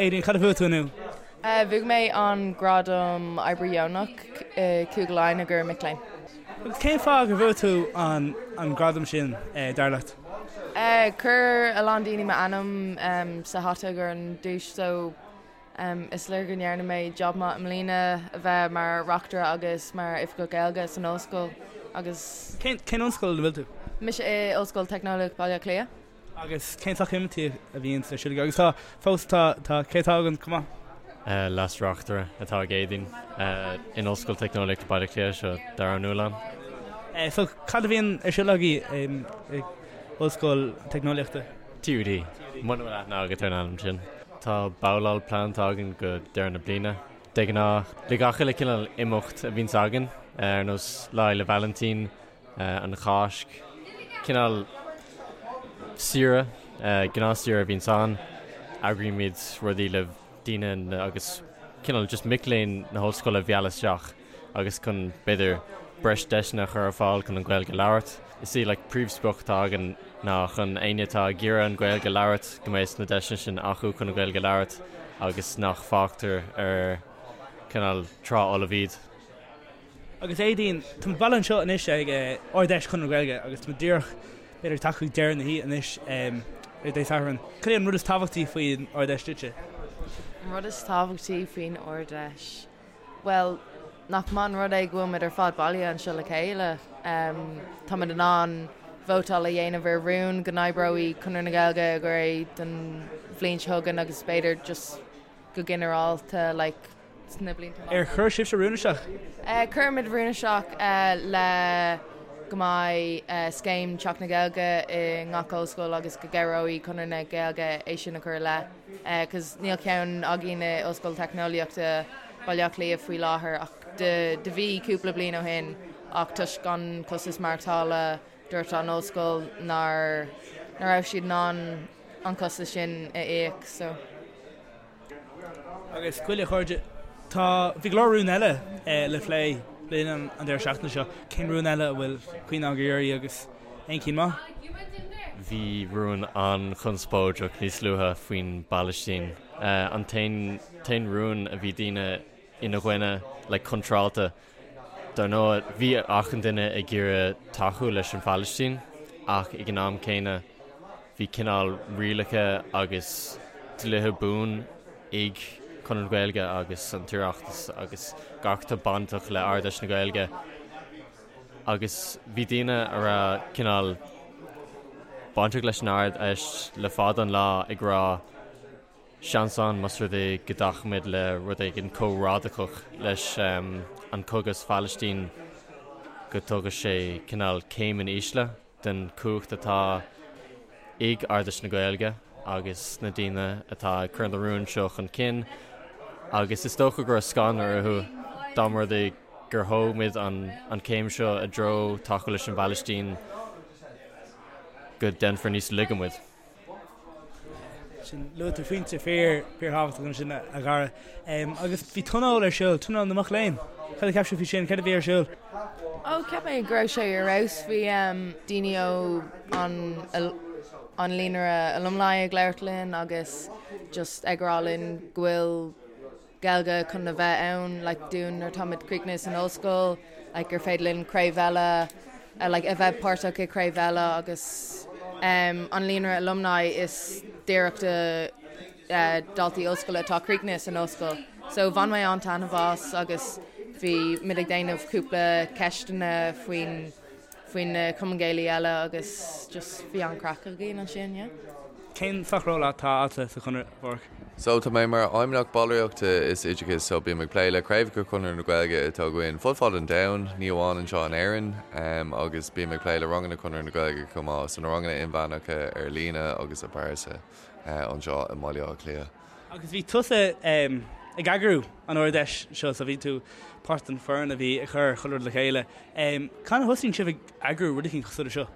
Aedín, cad a bhuaigh tú inniu? Bhuaigh mé an gradam Oibrí Dheonach i Cúige Laighean i gcomhair mic léinn. Agus cén fáth gur bhuaigh tú an gradam sin, dar leat? Chuir a lán daoine m'ainm sa hata i gcomhair an duais so is léir go ndearna mé job maith i mbliana a bheith mar reachtaire agus mar oifigeach Gaeilge san ollscoil agus. Cén ollscoil ina bhfuil tú? Mise i Ollscoil Teicneolaíocht Baile Átha Cliath. Agus cén sórt imeachtaí a bhíonn ar siúl agaibh? Agus tá, fós tá, tá, cé atá againn chomh maith? Leas-Reachtaire atá ag Aedín in Ollscoil Teicneolaíochta Baile Átha Cliath, seo Dara Ó Nualláin. So cad a bhíonn ar siúl agaibh i Ollscoil Teicneolaíochta? TUD, muna bhfuil aithne agat ar an ainm sin. Tá babhláil pleantáilte againn go deireadh na bliana. De ghnáth, le gach uile cineál imeacht a bhíonns againn, ar nós Lá Fhéile Vailintín, an Cháisc, cineál saoire, gnáthshaoire a bhíonns ann. Eagraímid rudaí le daoine agus cineál just mic léinn na hollscoile a mhealladh isteach agus chun, b'fhéidir, breis deiseanna a chur ar fáil chun an Ghaeilge a labhairt. Is í like príomhsprioc atá againn ná chun éinne atá ag iarraidh an Ghaeilge a labhairt go mbeidh na deiseanna sin acu chun an Ghaeilge a labhairt agus nach fágtar ar cineál trá fholamh iad. Agus Aedín, tá muid bailithe anseo anois ag Ard-Fheis Chonradh na Gaeilge agus tá muid díreach, b'fhéidir, ag teacht chuig deireadh na hoíche anois ar Dé Sathairn. Cad é an rud is tábhachtaí faoin Ard-Fheis duitse? An rud is tábhachtaí faoin Ard-Fheis? Bhuel, nach maith an rud é go bhfuil muid ar fad bailithe anseo le chéile. Tá muid in ann vótáil a dhéanamh ar rún go n-oibreoidh Conradh na Gaeilge i gcomhair don bhliain seo chugainn agus b'fhéidir just go ginearálta like, sna blianta amach. Ar chuir sibhse rún isteach? Chuir muid rún isteach le go mbeidh scéim Teach na Gaeilge i ngach ollscoil agus go gcabhróidh Conradh na Gaeilge é sin a chur i leith cos níl ceann againn i Ollscoil Teicneolaíochta Baile Átha Cliath faoi láthair ach do bhí cúpla bliain ó shin ach toisc an costas maireachtála dúirt an ollscoil nár raibh siad in ann an costas sin a íoc so. Agus bhuel a chairde, tá, bhí go leor rún eile le plé le linn an deireadh seachtaine seo. Cén rún eile a bhfuil cuimhne agaibh uirthi agus aon cinn maith? Bhí rún an-chonspóideach níos luaithe faoin bPalaistín. An t-aon rún a bhí daoine ina gcoinne, like contrálta. Dar ndóigh, bhí achan duine ag iarraidh tacú leis an Phalaistín ach ag an am céanna bhí cineál rialacha agus dlíthe buan ag Conradh na Gaeilge agus an tOireachtas agus gach atá bainteach le Ard-Fheis na Gaeilge agus bhí daoine a raibh cineál bainteach leis an Ard-Fheis le fada an lá ag rá Seans ann, más rud é go dtacaímid le rud éigin chomh radacach leis an cogadh sa Phalaistín, go dtugadh sé cineál céim in ísle den chumhacht atá ag Ard-Fheis na Gaeilge agus na daoine atá ag cur na rúin seo chun cinn. Agus is dócha go raibh scanradh orthu dá mba rud é gur thóg muid an chéim seo i dtreo tacú leis an bPalaistín go déanfar níos laige muid. Sin, luaigh tú pointe fíor, fíorthábhachtach ansin a Dhara. Agus bhí tionól ar siúl, tionól na mac léinn. Cad a cheap sibh faoi sin? Céard a bhí ar siúl? Ó, cheap mé go raibh sé ar fheabhas. Bhí daoine ó an an líonra alumni ag labhairt linn agus just ag rá linn go bhfuil Gaeilge chun a bheith ann like dúinn nuair atáimid críochnaithe san ollscoil like gur féidir linn craobh eile like a bheith páirteach i craobh eile agus um, an líonra alumni is díreach do uh, daltaí ollscoile atá críochnaithe san ollscoil. So bhain mé an-taitneamh as agus bhí muid ag déanamh cúpla ceisteanna faoin faoin na Cumainn Gaelaí eile agus just bhí an-craic againn ansin, yeah. Cén sórt ról atá agatsa sa Chonradh, a Pháraic? So tá mé mar Fheidhmeannach Ballraíochta is Oideachais so bím ag plé le craobhacha Chonradh na Gaeilge atá againn fud fad an domhain, ní amháin anseo in Éirinn, agus bím ag plé le ranganna Chonradh na Gaeilge chomh maith, so na ranganna inmheánacha ar líne agus i bpearsa anseo i mBaile Átha Cliath. Agus bhí tusa ag eagrú an Ard-Fheis seo so bhí tú páirt den foireann a bhí ag cur chuile rud le chéile. Cathain a thosaíonn sibh ag eagrú rud eicínt cosúil le seo?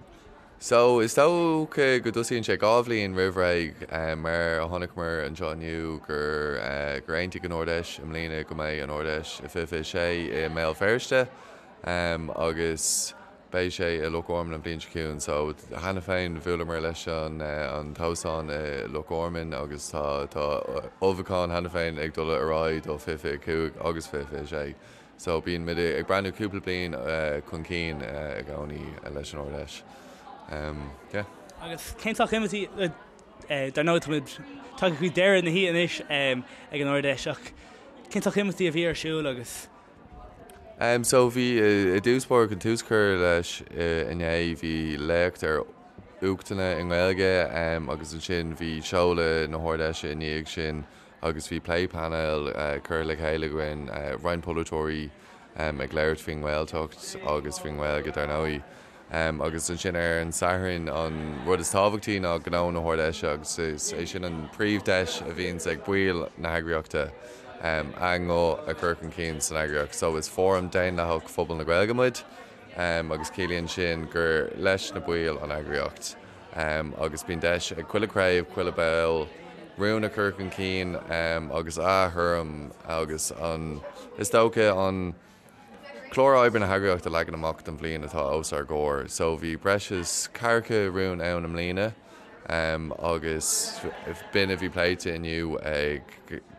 So, is dócha go dtosaíonn sé 2 bhliain roimh ré, mar a chonaiceamar anseo inniu gur gur aontaigh an Ard-Fheis i mbliana go mbeidh an Ard-Fheis i 2026 i mBéal Feirste agus. Beidh sé i Loch Gorman an bhliain seo chugainn so cheana féin bhuaileamar leis an an t-óstán i Loch Gorman agus tá tá ullmhúchán cheana féin ag dul ar aghaidh do 2025 agus 2026 so bíonn muid ag breathnú cúpla bliain chun cinn i gcónaí leis an Ard-Fheis. Yeah. Agus cén sórt imeachtaí, dar ndóigh táimid tagtha chuig deireadh na hoíche anois ag an Ard-Fheis ach cén sórt imeachtaí a bhí ar siúl agus So bhí i dtús báire chun tús cur leis inné bhí léacht ar uachtanna i nGaeilge agus ansin bhí seoladh na hArd-Fheise i ndiaidh sin agus bhí plé painéil curtha le chéile againn, roinnt polaiteoirí ag labhairt faoin nGaeltacht agus faoin nGaeilge dar ndóigh. Agus ansin ar an Satharn, an rud is tábhachtaí ná gnó na hArd-Fheise agus is é sin an príomh-deis a bhíonns ag baill na heagraíochta a nguth a chur chun cinn san eagraíocht. So is fóram daonlathach phobal na Gaeilge muid agus ciallaíonn sin gur leis na baill an eagraíocht agus bíonn deis ag chuile chraobh, chuile ball rún a chur chun cinn agus a thuairim agus an, is dócha an, Clár oibre na heagraíochta a leagan amach don bhliain atá os ár gcomhair. So bhí breis is ceathracha rún ann i mbliana agus b'in a bhí pléite inniu ag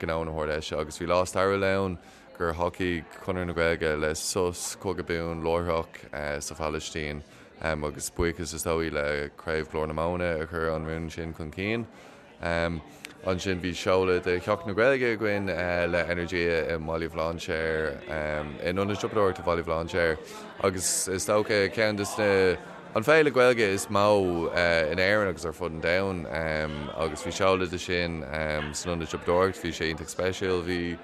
gnó na hArd-Fheise agus bhí lá stairiúil ann gur thacaigh Conradh na Gaeilge le sos cogadh buan láithreach sa Phalaistín agus buíochas is dóigh le Craobh Ghlór na Móna a chuir an rún sin chun cinn. Ansin bhí seoladh de Sheachtain na Gaeilge againn le Energia i mBaile Bhlainséir, in Ionad Siopadóireachta Bhaile Bhlainséir agus is dócha ceann de na, an féile Gaeilge is mó in Éirinn agus ar fud an domhain agus bhí seoladh de sin san Ionad Siopadóireachta, bhí sé iontach speisialta, bhí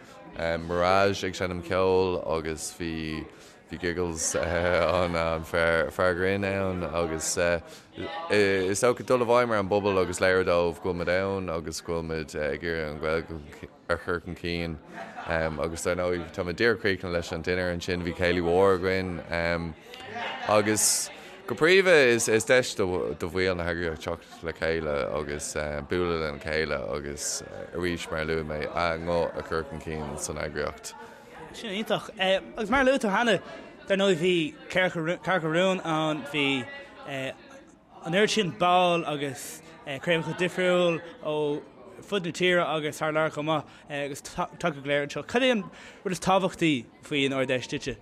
Mirage ag seinm ceoil agus bhí. Bhí Giggles an fear grinn ann agus is dócha dul i bhfeidhm ar an bpobal agus léiriú dóibh go bhfuil muid ann agus go bhfuil muid ag iarraidh an Ghaeilge a chur chun cinn agus dar ndóigh tá muid díreach críochnaithe leis an dinnéar ansin, bhí céilí mhór againn agus go príomha is deis do bhaill na heagraíochta teacht le chéile agus bualadh lena chéile agus arís mar a luaigh mé a nguth a chur chun cinn san eagraíocht. Sin iontach. Agus mar a luaigh tú cheana, dar ndóigh bhí ceathracha rún ann, bhí an oiread sin ball agus craobhacha difriúil ó fud na tíre agus thar lear chomh maith agus tagtha go léir anseo. Cad é an rud is tábhachtaí faoin Ard-Fheis duitse?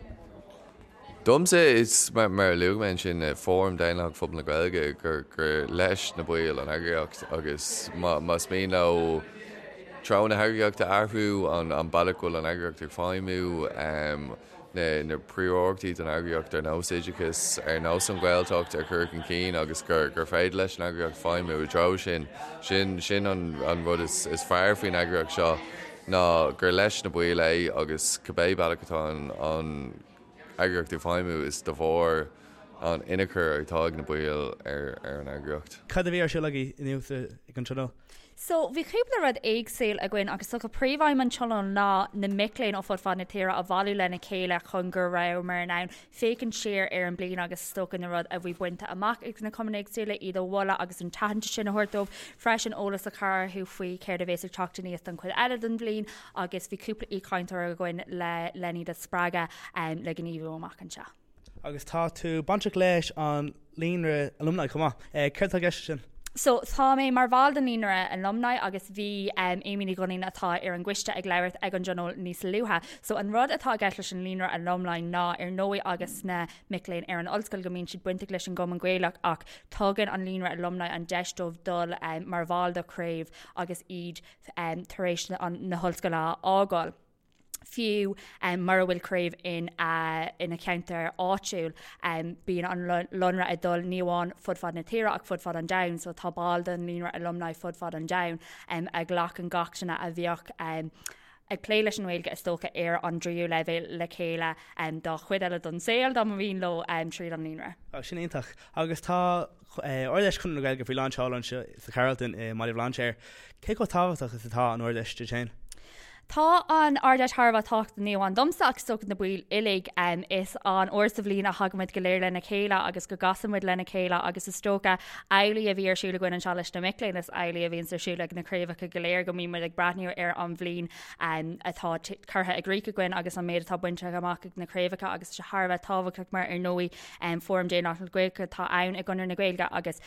Domsa, is mar a luaigh mé ansin, Fóram Daonlathach Phobal na Gaeilge, gur leis na baill an eagraíocht agus más mian leo treo na heagraíochta a athrú, an bealach go bhfuil an eagraíocht ag feidhmiú, na príomhiarrachtaí don eagraíocht ar nós oideachas, ar nós an Ghaeltacht a chur chun cinn agus gur féidir leis an eagraíocht feidhmiú i dtreo sin, sin an rud is fearr faoin eagraíocht seo ná gur leis na baill é agus cibé bealach atá an eagraíocht ag feidhmiú is de bharr an tionchar atá ag na baill ar an eagraíocht. Cad a bhí ar siúl agaibh inniu ag an tionól? So, bhí cúpla rud éagsúil againn agus is dócha príomhaidhm an tionóil ná na mic léinn ó fud fad na tíre a bhailiú lena chéile chun go rabhamar in ann féachaint siar ar an bliain agus is dócha na rud a bhí bainte amach ag na cumainn éagsúla, iad a mholadh agus an t-aitheantas sin a thabhairt dóibh. Freisin eolas a chur orthu faoi céard a bhéas ag teacht aníos don chuid eile den bhliain agus bhí cúpla aoichainteoir againn le len iad a spreagadh le gníomhú amach anseo. Agus tá tú bainteach leis an Líonra Alumni chomh maith. Céard atá i gceist leis sin? So, tá mé mar bhall den Líonra Alumni agus bhí Amy Ní Dhuinnín atá ar an gcoiste ag labhairt ag an dtionól níos luaithe. So, an rud atá i gceist leis an Líonra Alumni ná ar ndóigh agus na mic léinn ar an ollscoil go mbíonn siad bainteach leis an gCumann Gaelach ach tugann an Líonra Alumni an deis dóibh dul mar bhall de chraobh agus iad tar éis na hollscoile a fhágáil. Fiú mura bhfuil craobh ina cheantar áitiúil, bíonn an Líonra ag dul ní amháin fud fad na tíre ach fud fad an domhain, so tá baill den Líonra Alumni fud fad an domhain a ghlacann gach duine a bheadh ag plé leis an nGaeilge is dócha ar an dtríú leibhéal le chéile dá chuid eile don saol dá mba mhian leo tríd an Líonra. Sin iontach. Agus tá Ard-Fheis Chonradh na Gaeilge faoi lán seoil anseo sa Carlton i mBaile Bhlainséir. Cé chomh tábhachtach is atá an Ard-Fheis duit féin? Tá an Ard-Fheis thar a bheith tábhachtach ní amháin domsa ach is dócha na baill uilig. Is an uair sa bhliain a thagaimid go léir lena chéile agus go gcasaimid lena chéile agus is dócha amhlaidh a bhí ar siúl againn anseo leis na mic léinn is amhlaidh a bhíonns ar siúl ag na craobhacha go léir go mbíonn muid ag breathnú ar an bhliain atá curtha i gcrích againn agus an méid atá bainte amach ag na craobhacha agus tá sé thar a bheith tábhachtach mar ar ndóigh Fóram Daonlathach na Gaeilge atá ann i gConradh na Gaeilge agus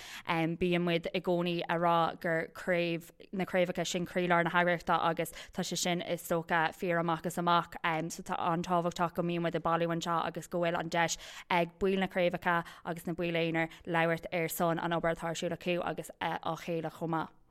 bíonn muid i gcónaí a rá gur craobh na craobhacha sin croílár na heagraíochta agus tá sé sin is dócha fíor amach is amach. So tá an-tábhachtach go mbíonn muid ag bailiú anseo agus go bhfuil an deis ag baill na craobhacha agus na baill aonair labhairt ar son an obair atá ar siúl acu agus á chéile chomh maith.